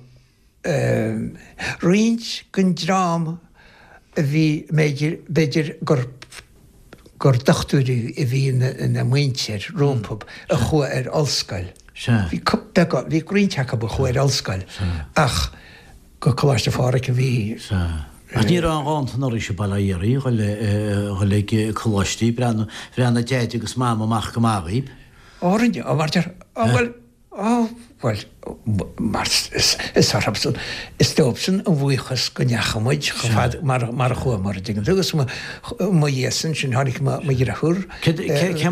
roinnt den dream a bhí, b'fhéidir, b'fhéidir gur, gur dochtúirí a bhí ina muintir rompu a chuaigh ar ollscoil. Bhí beagán, bhí roinnt acu a chuaigh ar ollscoil ach go Coláiste Phádraig a bhí. Ach ní raibh aon ghanntan oraibhse i Baile Átha Fhiarraí a dhul ag coláistí, bhreathnaigh Deaid agus Mam amach go maith dhaoib. Ó rinne, ó mar deir, ó bhuel, ó bhuel, mar is orthubsan, is dóibhsean an bhuíochas go ndeachaigh muid chomh fada mar mar a chuamar, an dtuigeann tú, agus mo mo dhiaidh-san sin tháinig mo mo dheirfiúr. Cé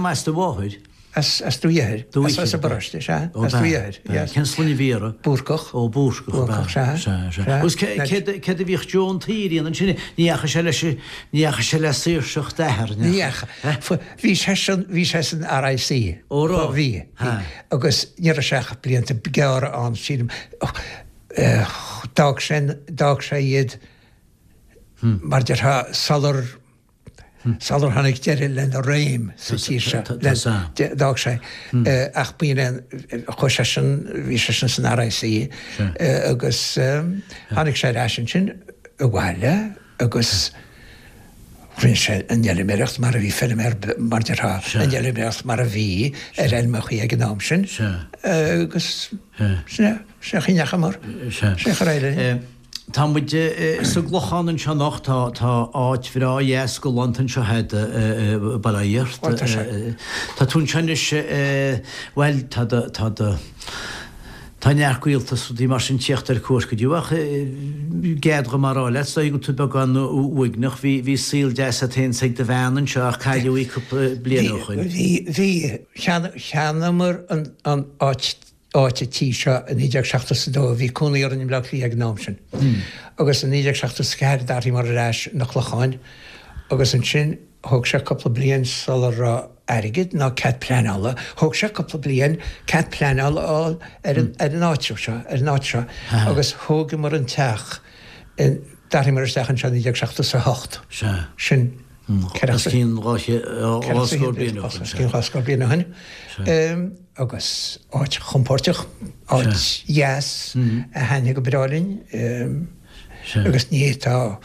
as do mháthair? As Dumha Uidhir. As an bparóiste, sea. As Dumha Uidhir, yes. Cén sloinne a bhí uirthi? Búrcach. Ó, Búrcach, ab ea? Búrcach, sea. Sea, sea. Agus céard a bhíodh Joe an tSaoir a dhéanamh ansin? Ní dheachaigh sé leis, ní dheachaigh sé le saoirseacht d'athar, ní dheachaigh? Bhí seisean, bhí sé san RIC. Ó, raibh? Bhí, bhí. Agus ní raibh sé ach blianta gearra ann, sílim. D'fhág sé, d'fhág sé iad, mar déarfá, sular, Sular tháinig deireadh lena réim sa tír seo, d'fhág sé. Ach b'in é, chuaigh seisean, bhí seisean san RIC agus tháinig sé ar ais ansin abhaile agus rinne sé an fheilméaracht mar a bhí feilméar, mar déarfá, an fheilméaracht mar a bhí ar fheilmeachaí ag an am sin agus sin é, sin é an chaoi a ndeachamar, sin é an chaoi ar éirigh linn. Tá muid sa gClochán anseo anocht, tá tá áit bhreá dheas galánta anseo a'd i Baile Átha Fhiart. Tá sé. Tá tú anseo anois, bhuel, tá do, tá do, tá neart gaolta is rudaí mar sin tíocht ar cuairt go dtí ach gead dhom a rá leat, is dóigh go bhfuil tú beagán uaigneach, bhí, bhí saol deas a'd féin 's ag do bhean anseo ach cailleadh í cúpla bliain ó shoin. Bhí, bhí, cheannaíomar an, an áit áit an tí seo i 1972, bhí cónaí orainn i mBleá Cliath ag an am sin, agus i 1974 d'athraíomar ar ais 'na Clocháin agus ansin thóg sé cúpla bliain sula raibh airgead ná cead pleanála, thóg sé cúpla bliain cead pleanála a fháil ar an ar an áitreabh seo, ar an áit seo agus thógamar an teach in, d'athraíomar isteach anseo i 1978. Sea. Sin. Os cionn 200 scór bliain ó shin. Os cionn 200 scór bliain ó shin. Agus áit chompóirteach, áit dheas a thaitnigh go breá linn. Agus ní fhéadfá,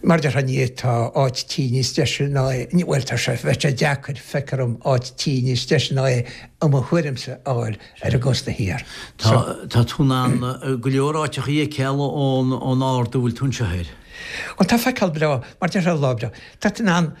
mar a déarfá, ní fhéadfá áit tí níos deise ná é, bhuel tá sé, bheadh sé deacair, feictear dom, áit tí níos deise ná é i mo thuairimse a fháil ar an gcósta thiar. Tá tú in ann go leor áiteachaí a fheiceáil ón ard a bhfuil tú anseo air. Bhuel, tá feiceáil breá, mar déarfá lá breá. Tá tú in ann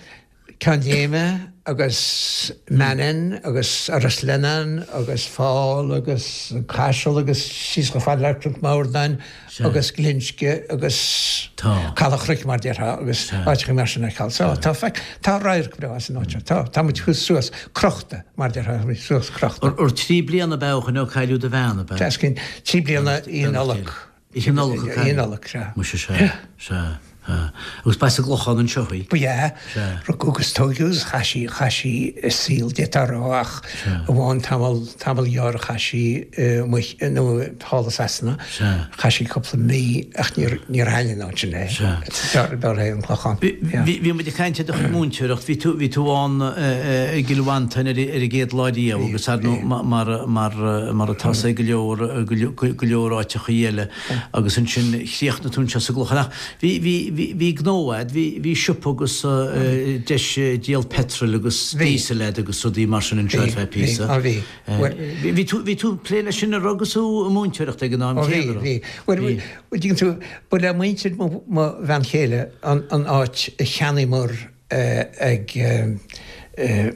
Ceann Léime agus Manainn agus Iorras Lionnáin agus Fál agus Caiseal agus síos chomh fada le Cnoc Mórdáin agus Glinsce agus Caladh Chnoic mar déarfá agus áiteacha mar sin a fheiceáil. So tá feic, tá radharc breá as an áit seo. Tá, tá muid thuas suas crochta mar déarfá, tá muid suas crochta. Ur 3 bliana ab ea ó shoin ó cailleadh do bhean, ab ea? 3 bliana i Nollaig. Oíche Nollag a cailleadh. Oíche Nollag, sea. Muise, sea, sea, sea. Agus ba as an gClochán anseo í? Ba ea. Sea. Rugadh agus tóigeadh agus chaith sí, chaith sí a saol, d'fhéadfá a rá, ach amháin tamall, tamall gearr a chaith sí amuigh, nó thall i Sasana. Sea. Chaith sí cúpla mí ach níor, níor thaitin an áit sin léi. Sea. B'fhearr léi an Clochán. Bhí, bhí muid ag caint ar do chuid múinteoireacht, bhí tú, bhí tú ann i gCill Mhantáin ar, ar an gcéad lá riamh agus ar ndóigh mar, mar, mar atá sé go leor, go leor áiteachaí eile agus ansin chríochnaigh tú anseo sa gClochán. Ach bhí, bhí, bhí, bhí gnó a'd, bhí, bhí siopa agus deis díol petrol agus diesel a'd agus rudaí mar sin anseo ar feadh píosa. Bhí, bhí, bhí. Bhí tú, bhí tú ag plé leis sin an raibh agus tú ag múinteoireacht ag an am céanna, raibh? Bhí, bhí. Bhuel, tuigeann tú, ba le muintir mo, mo bhean chéile an, an áit a cheannaíomar ag,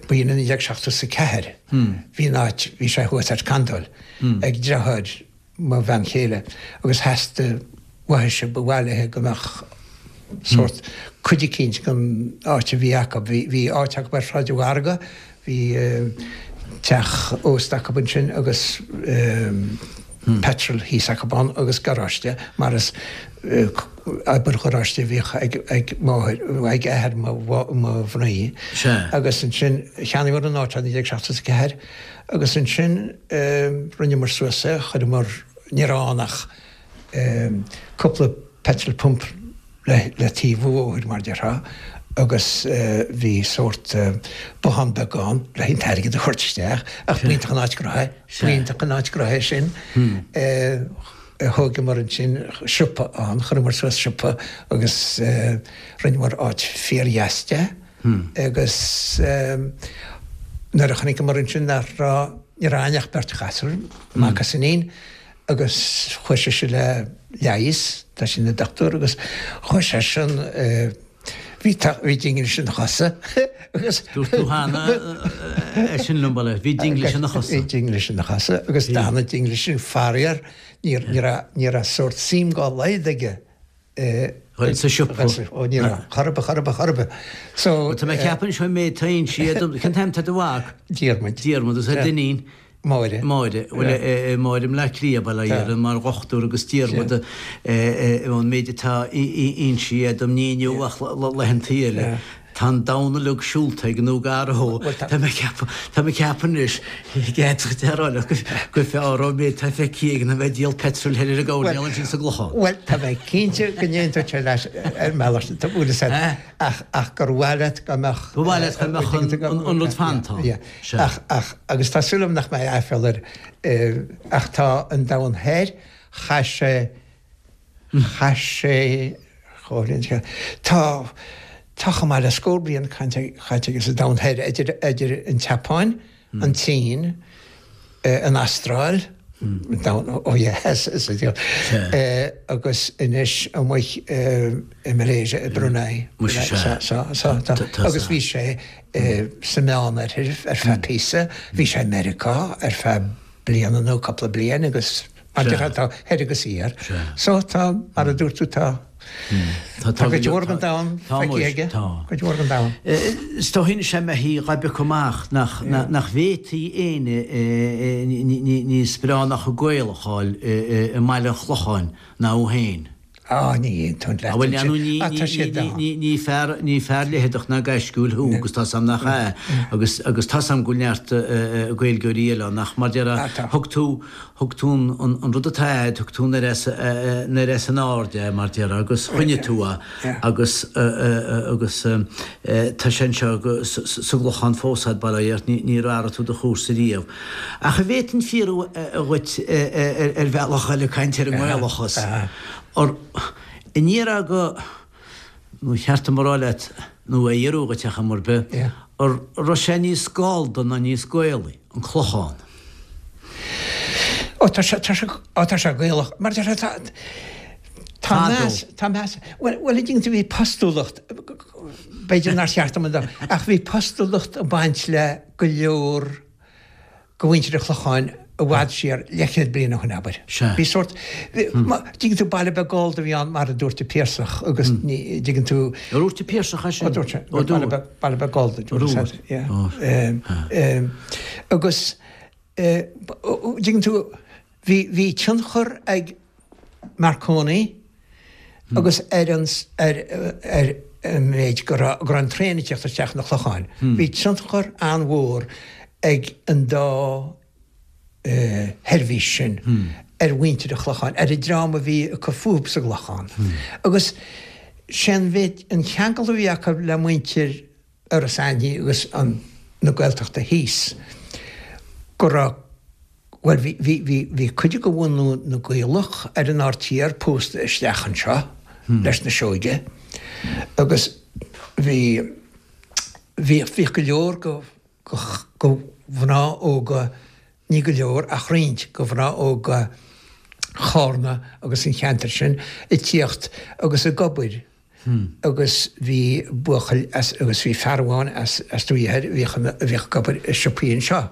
ba in 1974, bhí an áit, bhí sé thuas ar Candóil, ag deartháir mo bhean chéile agus theastaigh uaithise, ba mhaith léithe go mbeadh sórt cuid eicínt den áit a bhí acu. Bhí áit acu ar Shráid an Mhargaidh, bhí teach ósta acu ansin agus petrol thíos acu ann agus garáiste mar is obair gharáiste a bhíodh ag máthair, ag athair mo mhnaoi. Agus ansin cheannaíomar an áit i 1974 agus ansin rinneamar suas é, chuireamar, ní raibh ann ach cúpla petrol pump le taobh an bhóthair mar déarfá agus bhí sórt bothán beag ann le an t-airgead a thabhairt isteach ach b'iontach an áit gnoithe, b'iontach an áit gnoithe sin. Thógamar ansin siopa ann, chuireamar suas siopa agus rinneamar áit fíordheas de agus nuair a chonaiceamar ansin nach raibh, ní raibh againn ach beirt ghasúr, mac is iníon, agus chuaigh sise le leigheas. tá sé ina dochtúir agus chuaigh seisean bhí bhí dinglis ina chosa agus Dúirt tú cheana é sin liom, bail, bhí dinglis ina chosa. Bhí dinglis ina chosa agus d'fhan an dinglis sin faraor ní ní raibh ní raibh sórt suim dá laghad aige i Dhul sa siopa. Ó ní raibh, chor ar bith, chor ar bith, chor ar bith. So Tá mé ag ceapadh anseo an méid atá insithe dom, cén t-ainm atá ar do mhac? Diarmuid. Diarmuid agus ar d'iníon? Máire. Máire. Bhuel, Máire i mBleá Cliath, bail ó Dhia uirthi, mar dhochtúir agus Diarmuid ón méid atá insithe dom, ní inniu ach laethantaí eile. Tá an domhan uilig siúlta aige nó gar dó. Tá mé ag ceapadh, tá mé ag ceapadh anois, d'fhéadfadh a rá leat gur fearr an méid atá feicthe aige ná bheith ag díol peitril thoir ar an gcoirnéal ansin sa gClochán. Bhuel, tá mé cinnte go n-aontódh sé leat ar an mbealach sin, tá bhuel is ea, ach, ach gur mhaith leat go mbeadh. Ba mhaith leat go mbeadh an rud fanta ann. Yeah. Ach, ach, agus tá súil agam nach mbeidh aiféala air, ach tá an domhan thoir, chaith sé, chaith sé, chomh, tá, tá chomh maith le scór bliain caite aige sa domhan thoir, idir, idir an tSeapáin, an tSín, an Astráil, an domhan ó dheas, agus anois amuigh i Malaysia, i Brunei. Agus bhí sé sa Meánoirthear ar feadh píosa, bhí sé i Meiriceá ar feadh bliana nó cúpla bliain agus mar a déarfá tá thoir agus thiar. So tá, mar a dúirt tú, tá tá cuid mhór den domhan feicthe aige, cuid mhór den domhan. Is dóigh anois dá mbeifí dhá bpiocadh amach nach nach bhféadfaí éinne níos breá ná chomh Gaelach a fháil i mBaile an Chlocháin ná thú féin. Á, ní aontóinn leat ansin. Bhuel, ar ndóigh, ní fear, ní fear leitheadach ná gaisciúil thú agus tá's a'm nach ea, agus, agus tá's a'm go bhfuil neart Gaeilgeoirí eile ann ach mar déarfá, thug tú, thug tú an, an rud atá a'd, thug tú anoir as, anoir as an aird é mar déarfá agus choinnigh tú é agus, agus tá sé anseo sa gClochán fós a'd, bail ó Dhia ort, níor athraigh tú do chúrsa riamh. Ach an bhféadfainn fiafraí dhuit ar bhealach eile caint ar an nGaelachas. Ar an ndéarfá go, nó cheart dom a rá leat, nó a fhiafraí dhuit ar chuma ar bith, an raibh sé níos Gallda ná níos Gaelaí, an Clochán? Ó tá sé, tá sé, ó tá sé Gaelach. Mar tá sé, tá, tá meas, tá meas, bhuel, bhuel, an dtuigeann tú, bhí postúlacht, b'fhéidir nár cheart dom a, ach bhí postúlacht ag baint le go leor de mhuintir an Chlocháin i bhfad siar, leathchéad bliain ó shin, abair. Sea. Bhí sórt, dtuigeann tú, baile beag Gallda a bhí ann mar a dúirt an Piarsach agus ní, dtuigeann tú. Ar dhúirt an Piarsach é sin? Ó dúirt sé. Ó dúirt. Baile beag, baile beag Gallda, dúirt sé. Yeah. Agus, dtuigeann tú, Bhí, bhí tionchar ag Marconi agus ar an, ar, ar an méid go raibh, go raibh an traein ag teacht isteach na Clocháin. Bhí tionchar an-mhór ag an dá sheirbhís sin ar mhuintir an Chlocháin, ar an dream a bhí ag cur fúthu sa gClochán. Agus sé an mhéid, an ceangal a bhí acu le muintir Iorras Aithní agus an, na Gaeltachta thíos, go raibh, bhuel bhí, bhí, bhí, bhí cuid de bhunadh na Gaelach ar an Aird Thiar pósta isteach anseo leis na Seoige agus bhí, bhíodh, bhíodh go leor go, go, go mhná óga, ní go leor ach roinnt go mhná óga Chárna agus an cheantair sin ag tíocht agus ag obair agus bhí buachaill as agus bhí fear amháin as as Dumhaigh Thoir a bhíodh a bhíodh ag obair i siopaí anseo.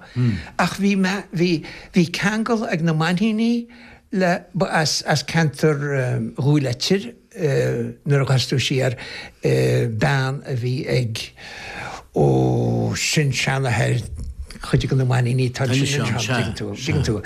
Ach bhí mé bhí bhí ceangal ag na Mainníní le ba as as ceantar Dhúill Oitir nuair a ghabhfas tú siar bean a bhí ag ó sin-seanathair chuid de na Mainníní tá sin anseo tuigeann tú tuigeann tú.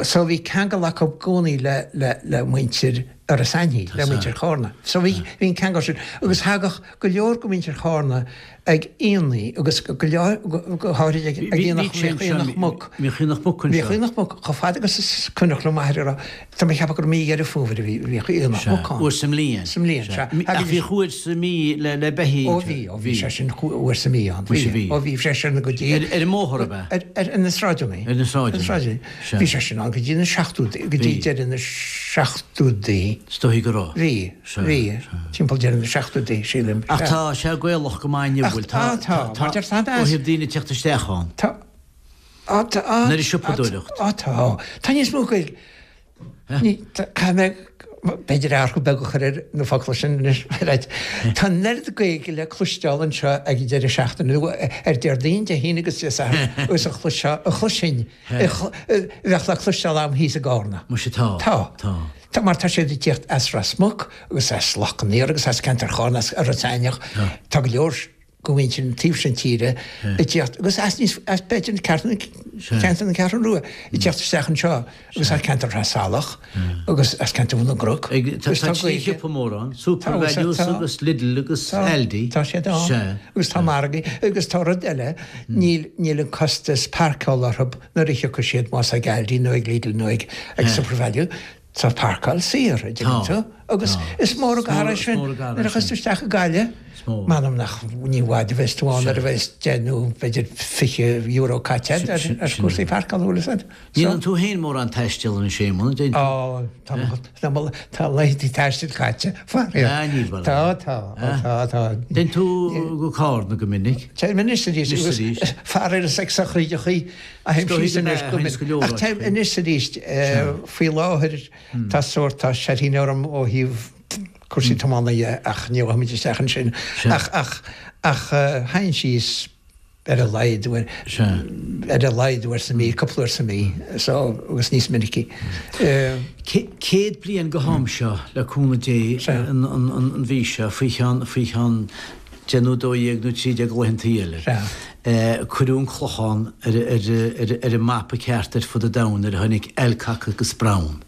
So bhí ceangal acu i gcónaí le, le, le muintir Iorras Aithní, le muintir Chárna. So bhí, bhí an ceangal sin. Agus thagadh go leor de mhuintir Chárna ag aonaigh agus go leor, go háirid ag, ag aonach, bhíodh aonach muc. Bhíodh aonach muc anseo. Bhíodh aonach muc chomh fada agus is cuimhneach le m'athair a rá, tá mé ag ceapadh gur mí Dheireadh Fómhair a bhí, bhíodh aonach muc ann. Uair sa mbliain. Sa mbliain, sea. Ach bhíodh uair sa mí le, le beithígh. Ó bhí, ó bhí sé sin uair sa mí ann. Bhí, bhí. Ó bhí sé sin go dtí. Ar, ar an mbóthar ab ea? Ar, ar, ar na sráideanna. Ar na sráideanna. Ar na sráideanna. Sea. Bhí sé sin ann go dtí na seachtóidí, go dtí deireadh na seachtóidí. Is dóigh go raibh. Bhí, bhí, timpeall deireadh na seachtóidí, sílim. Ach tá sé Gaelach go maith inniu, bhfuil? Tá, tá, mar deir tá ó thaobh daoine ag teacht isteach ann. Tá, á, tá, á, Nuair a siopadóireacht. Á, tá, tá níos mó Gaeilge. Ní, tá, caithfidh mé. B'fhéidir athrú beag a chur ar na focla sin anois, right. Tá an oiread Gaeilge le cloisteáil anseo ag an deireadh seachtaine, nó ar Déardaoin, Dé hAoine agus Dé Sathairn, agus a chloisfeá, a chloisfinn, a bheadh le cloisteáil agam thíos i gCarna. Muise tá. Tá. Tá. Tá, mar tá siad ag tíocht as Ros Muc agus as Loch an Iúir agus as ceantar Chárna, as Iorras Aithneach. Tá go leor. go mhuintir an taobh sin tíre ag tíocht agus as níos as b'fhéidir ceantar ceantar na Ceathrún Rua ag tíocht isteach anseo agus as ceantar Thra Salach agus as ceantar Bhun na gCnoc. Tá tá trí shiopa mór ann, SuperValu agus Lidl agus Aldi. Tá siad ann agus tá margaí agus tá rud eile níl níl an costas páirceála orthu nuair a thiocfaidh siad más ag Aldi nó ag Lidl nó ag ag SuperValu. Tá páirceáil saor, a dtuigeann tú, agus is mór an gar é sin nuair a thiocfas tú isteach i Gaillimh. M'anam nach ní i bhfad a bheas tú ann nuair a bheas deich nó b'fhéidir €20 caite agat ar chúrsaí páirceála, bhfuil fhios agat. Ní dhéanann tú féin mórán taistil anois, Éamonn, an déanann tú? Ó, tá mo, tá laethanta taistil caite, faraor. Ah, níl, bhuel. Tá, tá, tá, tá. Téann tú go Cárna go minic? Téim anois arís, agus faraor is ag sochraídeachaí a théim síos anois go minic. Ach téim anois arís, faoi láthair tá sórt, tá seirthín orm ó thaobh cúrsaí tiomána dhe ach ní ghabhfaimid isteach ansin. Ach, ach, ach théinn síos ar a laghad uair, ar a laghad uair sa mhí, cúpla uair sa mhí, so, agus níos minicí. 100 bliain go ham seo, le cúnamh Dé, an mhí seo, faoi cheann, faoi cheann deich nó 12 nó 13 laethantaí eile. Cuireadh an Clochán ar an mapa ceart ar fud an domhain nuair a tháinig Alcock agus Brown.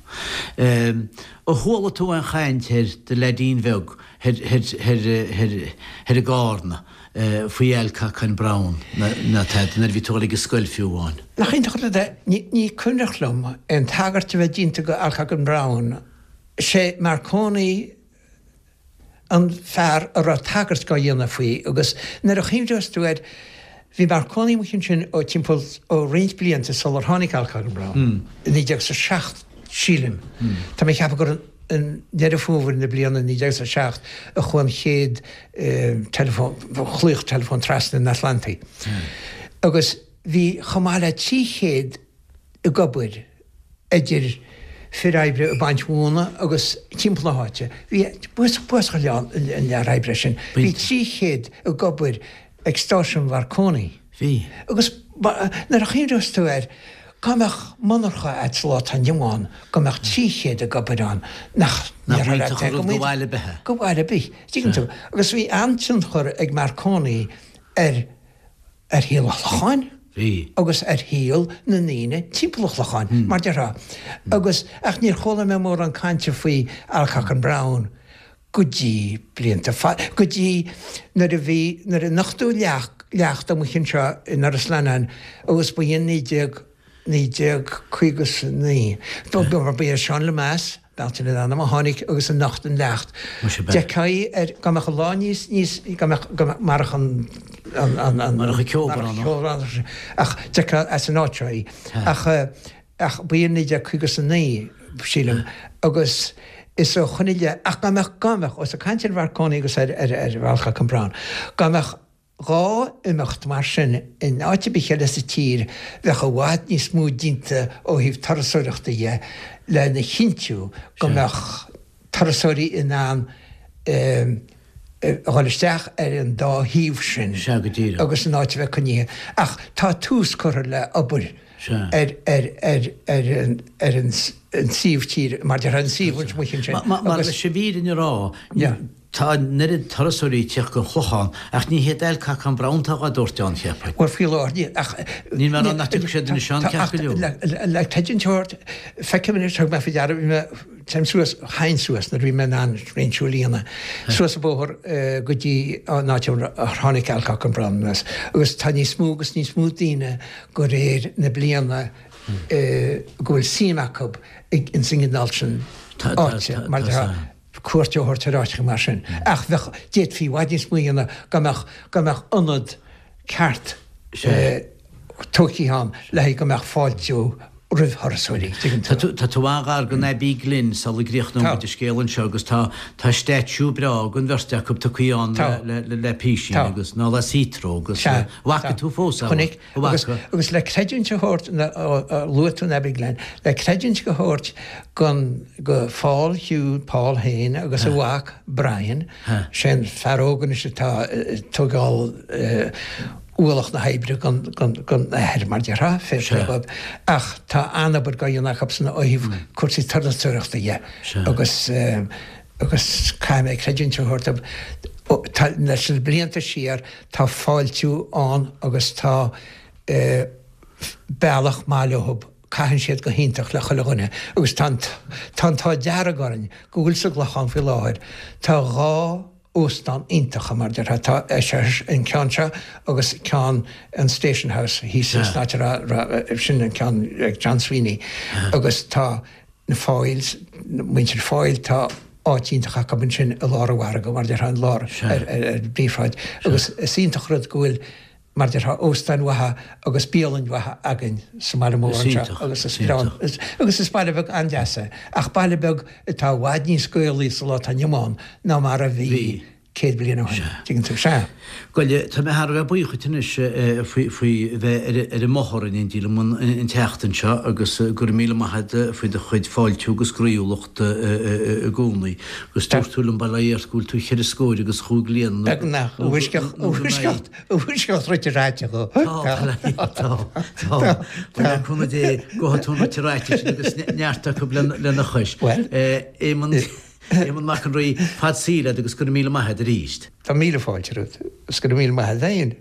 Ar chuala tú aon chaint ar do leaidín bheag thoir i gCárna faoi Alcock and Brown ná tada nuair a bhí tú ag dul ag an scoil fiú amháin? Nach iontach an rud é? Ní cuimhneach liom aon tagairt a bheith déanta go Alcock and Brown. Sé Marconi an fear a raibh tagairt dhá dhéanamh faoi agus nuair a chuimhneos tú air, bhí Marconi amuigh ansin ó timpeall, ó roinnt blianta sular tháinig Alcock and Brown, i 1907 sílim. Tá mé ag ceapadh gur i nDeireadh Fómhair na bliana 1907 a chuaigh an chéad teileafón, ghlaoch teileafóin trasna an Atlantaigh. Agus bhí chomh maith le 300 ag obair idir fir oibre ag baint mhóna agus timpeall na háite. Bhí buasach an lear oibre sin. Bhí 300 ag obair ag stáisiún Mharconi. Bhí. Agus nuair a chuimhneos tú air, dá mbeadh monarcha a'd sa lá atá inniu ann, go mbeadh 300 ag obair ann, nach Nach mbainfeadh an rud go bhaile ar bith é. Go bhaile ar bith. Tuigeann tú? Agus bhí an-tionchar ag Marconi ar. ar shaol an Chlocháin agus ar shaol na ndaoine timpeall an Chlocháin, mar déarfá. Agus, ach níor chuala mé mórán cainte faoi Alcock and Brown go dtí blianta fada, go dtí nuair a bhí, nuair a nochtadh leacht, leacht amuigh anseo in Iorras Leannáin agus ba in 19, 1959, ba é Seán Lemass, Bealtaine an ainm a tháinig agus a nocht an leacht. D'fheicfeá ar, dá mbeadh an lá níos, níos, dá mbeadh, dá mbeadh, marach an, an, an, an, Marach an ceobhrán. Ach d'fheicfeá as an áit seo í. Ach, ach ba in 1959, sílim, agus is ó shoin i leith, ach dá mbeadh, dá mbeadh, ós ag caint ar Mharconi agus ar, ar, ar Alcock and Brown, dá mbeadh 2 imeacht mar sin in áit ar bith eile sa tír, bheadh i bhfad níos mó déanta ó thaobh turasóireachta dhe lena chinntiú go mbeadh turasóirí in ann a dhul isteach ar an dá thaobh sin agus an áit a bheith coinnithe. Ach tá tús curtha le obair ar ar an suíomh tíre, mar déarfá, an suíomh amuigh ansin. Mar leis an bhfírinne a rá, Tá an oiread turasóirí ag tíocht gon Chlochán, ach ní hiad Alcock and Brown atá dhá dtabhairt ann, cheapfainn. Bhuel, faoi láthair níl, ach. Níl mé ag rá nach dtiocfaidh siad anois ann, ceart go leor. Le tuigeann tú ort, feicim anois, thug mé faoi deara, bhí mé, téim suas, théinn suas nuair a bhí mé in ann roinnt siúil a dhéanamh, suas an bóthar go dtí an áit ar tháinig Alcock and Brown anuas, agus tá níos mó agus níos mó daoine de réir na bliana go bhfuil suim acu ins an gcineál sin áite, mar tá. cuairt a thabhairt ar áiteacha mar sin. Ach bheadh, d'fhéadfaí i bhfad níos mó a dhéanamh dá mbeadh, dá mbeadh ionad ceart tógtha ann le haghaidh go mbeadh fáiltiú. roimh thurasóirí, tuigeann tú. Tá tú an-ghar don Abbey Glen sula gcríochnóidh muid an scéal anseo agus tá tá statue breá den bheirt acu tugtha ann le le le písín agus ná le Heathrow agus Sea. bhfaca tú fós é? Chonaic. Agus agus le creidiúint a thabhairt luaigh tú an Abbey Glen, le creidiúint a thabhairt gon go Paul Hugh Paul féin agus a mhac Brian, sé an fear óg anois atá ag tógáil ualach na hoibre gon athair, mar déarfá, fair play dhóibh. Ach tá an-obair dhá dhéanamh acusan ó thaobh cúrsaí turasóireachta dhe agus agus caithfidh mé creidiúint a thabhairt dóibh, tá leis na blianta siar tá fáiltiú ann agus tá bealach maith leothub, caitheann siad go hiontach le chuile dhuine agus tá an tá an t-ádh dearg orainn go bhfuil sa gClochán faoi láthair, tá 2 óstán iontacha mar déarfá, tá an ceann seo agus ceann an Station House thíos san áit a raibh, sin an ceann ag John Sweeney agus tá na Foyles, muintir Foyle, tá áit iontach acu ansin i lár an mhargaidh mar déarfá, i lár ar an bpríomhshráid agus is iontach rud go bhfuil mar déarfá, óstáin mhaithe agus bialainn mhaithe againn sa mbaile mór anseo agus is breá agus is baile beag an-deas é ach baile beag atá i bhfad níos Gaelaí sa lá atá inniu ann ná mar a bhí 100 bliain ó shin, tuigeann tú. Sea. Bhuel, tá mé thar a bheith buíoch duit anois faoi faoi bheith ar ar an mbóthar in éindí liom an tseachtain seo agus go raibh míle maith agat faoi do chuid fáiltiú agus groíúlacht i gcónaí. Agus dúirt tú liom, bail ó Dhia ort, go bhfuil tú cheithre scóir agus chúig bliana nó Beagnach, i bhfoisceacht, i bhfoisceacht. Bhfuisceacht rite ráite dho. Tá, tá, tá. Bhuel, le cúnamh Dé, gabhfaidh tú an rite ráite sin agus neart acu lena chois. Bhuel. Éamonn, Éamonn Mac an Rí, fad saoil leat agus go raibh míle maith agat arís. Tá míle fáilte romhat agus go raibh míle maith agat féin.